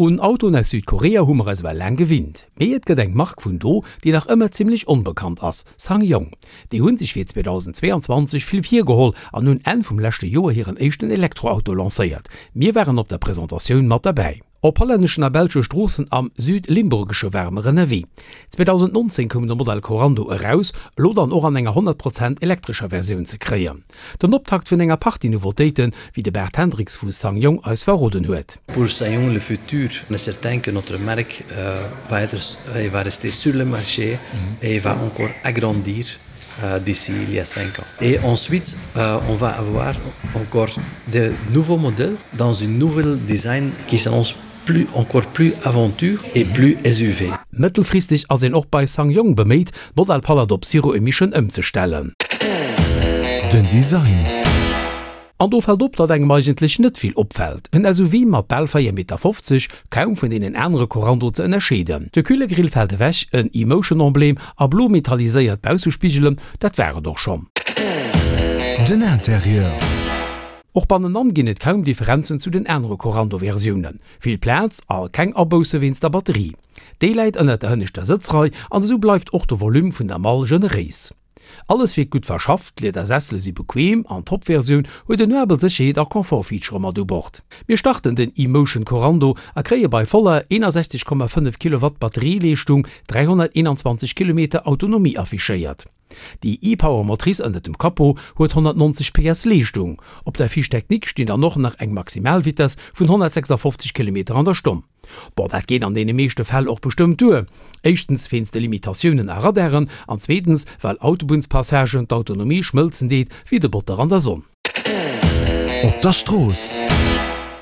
Un Autoen aus Südkorea hu mer eis ewell laang gewinnt, mee et gëtt eng Mark vun do, déi nach ëmmer zimmlech onbekannt ass, SsangYong. Déi hu sech fir 2022 vill virgeholl an hunn Enn vum leschte Joer hiren éischten Elektroauto lancéiert. Mir waren op der Presentatioun mat derbäi. Op hollänneschen a belsche Stroossen am Südlimburgesche ware mer ënnerwee. 2019 koum de Modell Korando eraus, elo dann och an enger 100 Prozent elektrescher Versioun ze kréien. Den Optakt vun enger Partie Nouveautéiten, wéi de Bert Hendriks vu SsangYong eis verroden huet. Pour SsangYong le futur est certain que notre marque va être et va rester sur le marché et va encore agrandir d'ici il y a 5 ans. Et ensuite on va avoir encore de nouveaux modèles dans une nouvelle design qui s'annonce plus encore plus aventure et plus SUV. Mëttelfristeg ass een och bei SsangYong beméit, d'Modellpalett op Zero Emission ëmzestellen. Den Design. An do fält op, datt engem eigentlech net vill opfält. En SUV mat bal 4 Meter 50, kaum vun deenen anere Korando ze ënnerscheeden. De Kühlergrill fält ewech, en E-Motion-Emblem a blo metalliséiert Baussespigelen, dat war et och schonn. Den Interieur. Och bannenan ginn et kaum Differenzen zu den anere Korando-Versiounen. Vill Plaz a keng Abousse wéinst der Batterie. Déi läit ënnert der hënneschter Sëtzrei an esou bleift och de Volume vun der Mall generéis. Alles wierkt gutt verschafft, d'Liedersessele si bequem an d'Top-Versioun huet en uabel Sécherheet a Confort-Featurë mat u Bord. Mir starten den E-Motion Korando a kréie bei voller 61,5 Kilowatt Batterieleeschtung 321 Kilometer Autonomie affichéiert. Déi e-Power Motrice ënnert dem Capot huet 190 PS Leeschtung. Op der Fiche technique stinn dann och nach eng Maximalvitess vun 156 Kilometer an der Stonn. Bon, dat geet an deene meeschte Fäll och bestëmmt duer. Éischtens wéinst de Limitatiounen a Radaren an zweetens well Autobunnspassagen d'Autonomie schmëlzen deet wéi de Botter an der Sonn. Op der Strooss.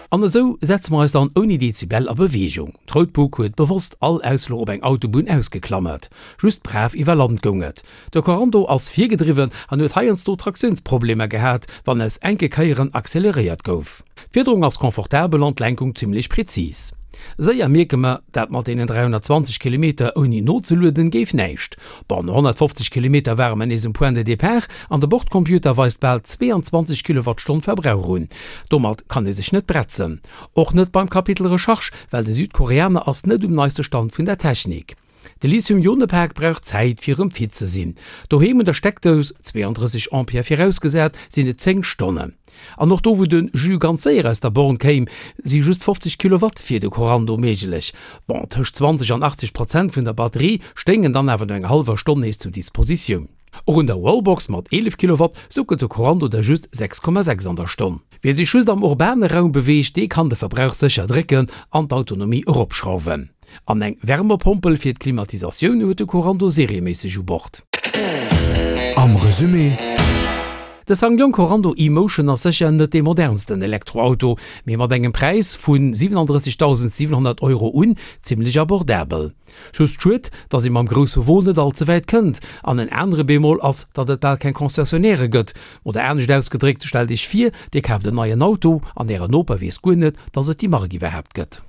An esou setze mer eis dann ouni Dezibel a Beweegung. D'Routbuk huet bewosst all Ausfluch op eng Autobunn ausgeklammert. Just brav iwwer Land goung et. De Korando ass virgedriwwen an huet heiansdo Traktiounsproblemer gehat, wann aus enke Kéieren acceleréiert gouf. D'Fiederung ass confortabel an d'Lenkung zimmlech präzis. Séier mierke mer, dat mat deenen 320 Kilometer ouni nozelueden géif näischt. Bon, no 150 Kilometer ware mer nees um Point de départ an de Bordcomputer weist bal 22 Kilowattstonn Verbrauch un. Domat kann ee sech net bretzen. Och net beim Kapitel Recharge, well de Südkoreaner ass net um neiste Stand vun der Technik. De Lithium-Ione-Pak brauch Zäit fir erëm fit ze sinn. Doheem un der Steckdous, 32 Ampère virausgesat, sinn et 10 Stonnen. An och do wou de Jus ganz séier aus der Born kéim, si just 50 Kilowatt fir de Korando méiglech. Bon, tëscht 20 an 80 Prozent vun der Batterie stéingen dann awer no enger hallwer Stonn nees zur Dispositioun. Och un der Wallbox mat 11 Kilowatt suckelt de Korando der just 6,6 an der Stonn. Wie sech just am urbane Raum beweegt, dee kann de Verbrauch sécher drécken an d'Autonomie eropschrauwen. An eng Wärmepompel fir d'Klimatisatioun huet de Korando serieméisseg u Bord. Am Resumé. De SsangYong Korando e-Motion ass sécher net dee modernsten Elektroauto, mee mat engem Präis vu 37.700 Euro un zimmlech abordabel. Just schued, datt ee mam grousse Won net all ze wäit kënnt. An en anere Bémol ass, datt et bal keng Concessionnairë gëtt. Oder anescht ausgedréckt, stellt iech vir, dir kaaft en neien Auto an ären Noper weess guer net, datt et déi Mark iwwerhaapt gëtt.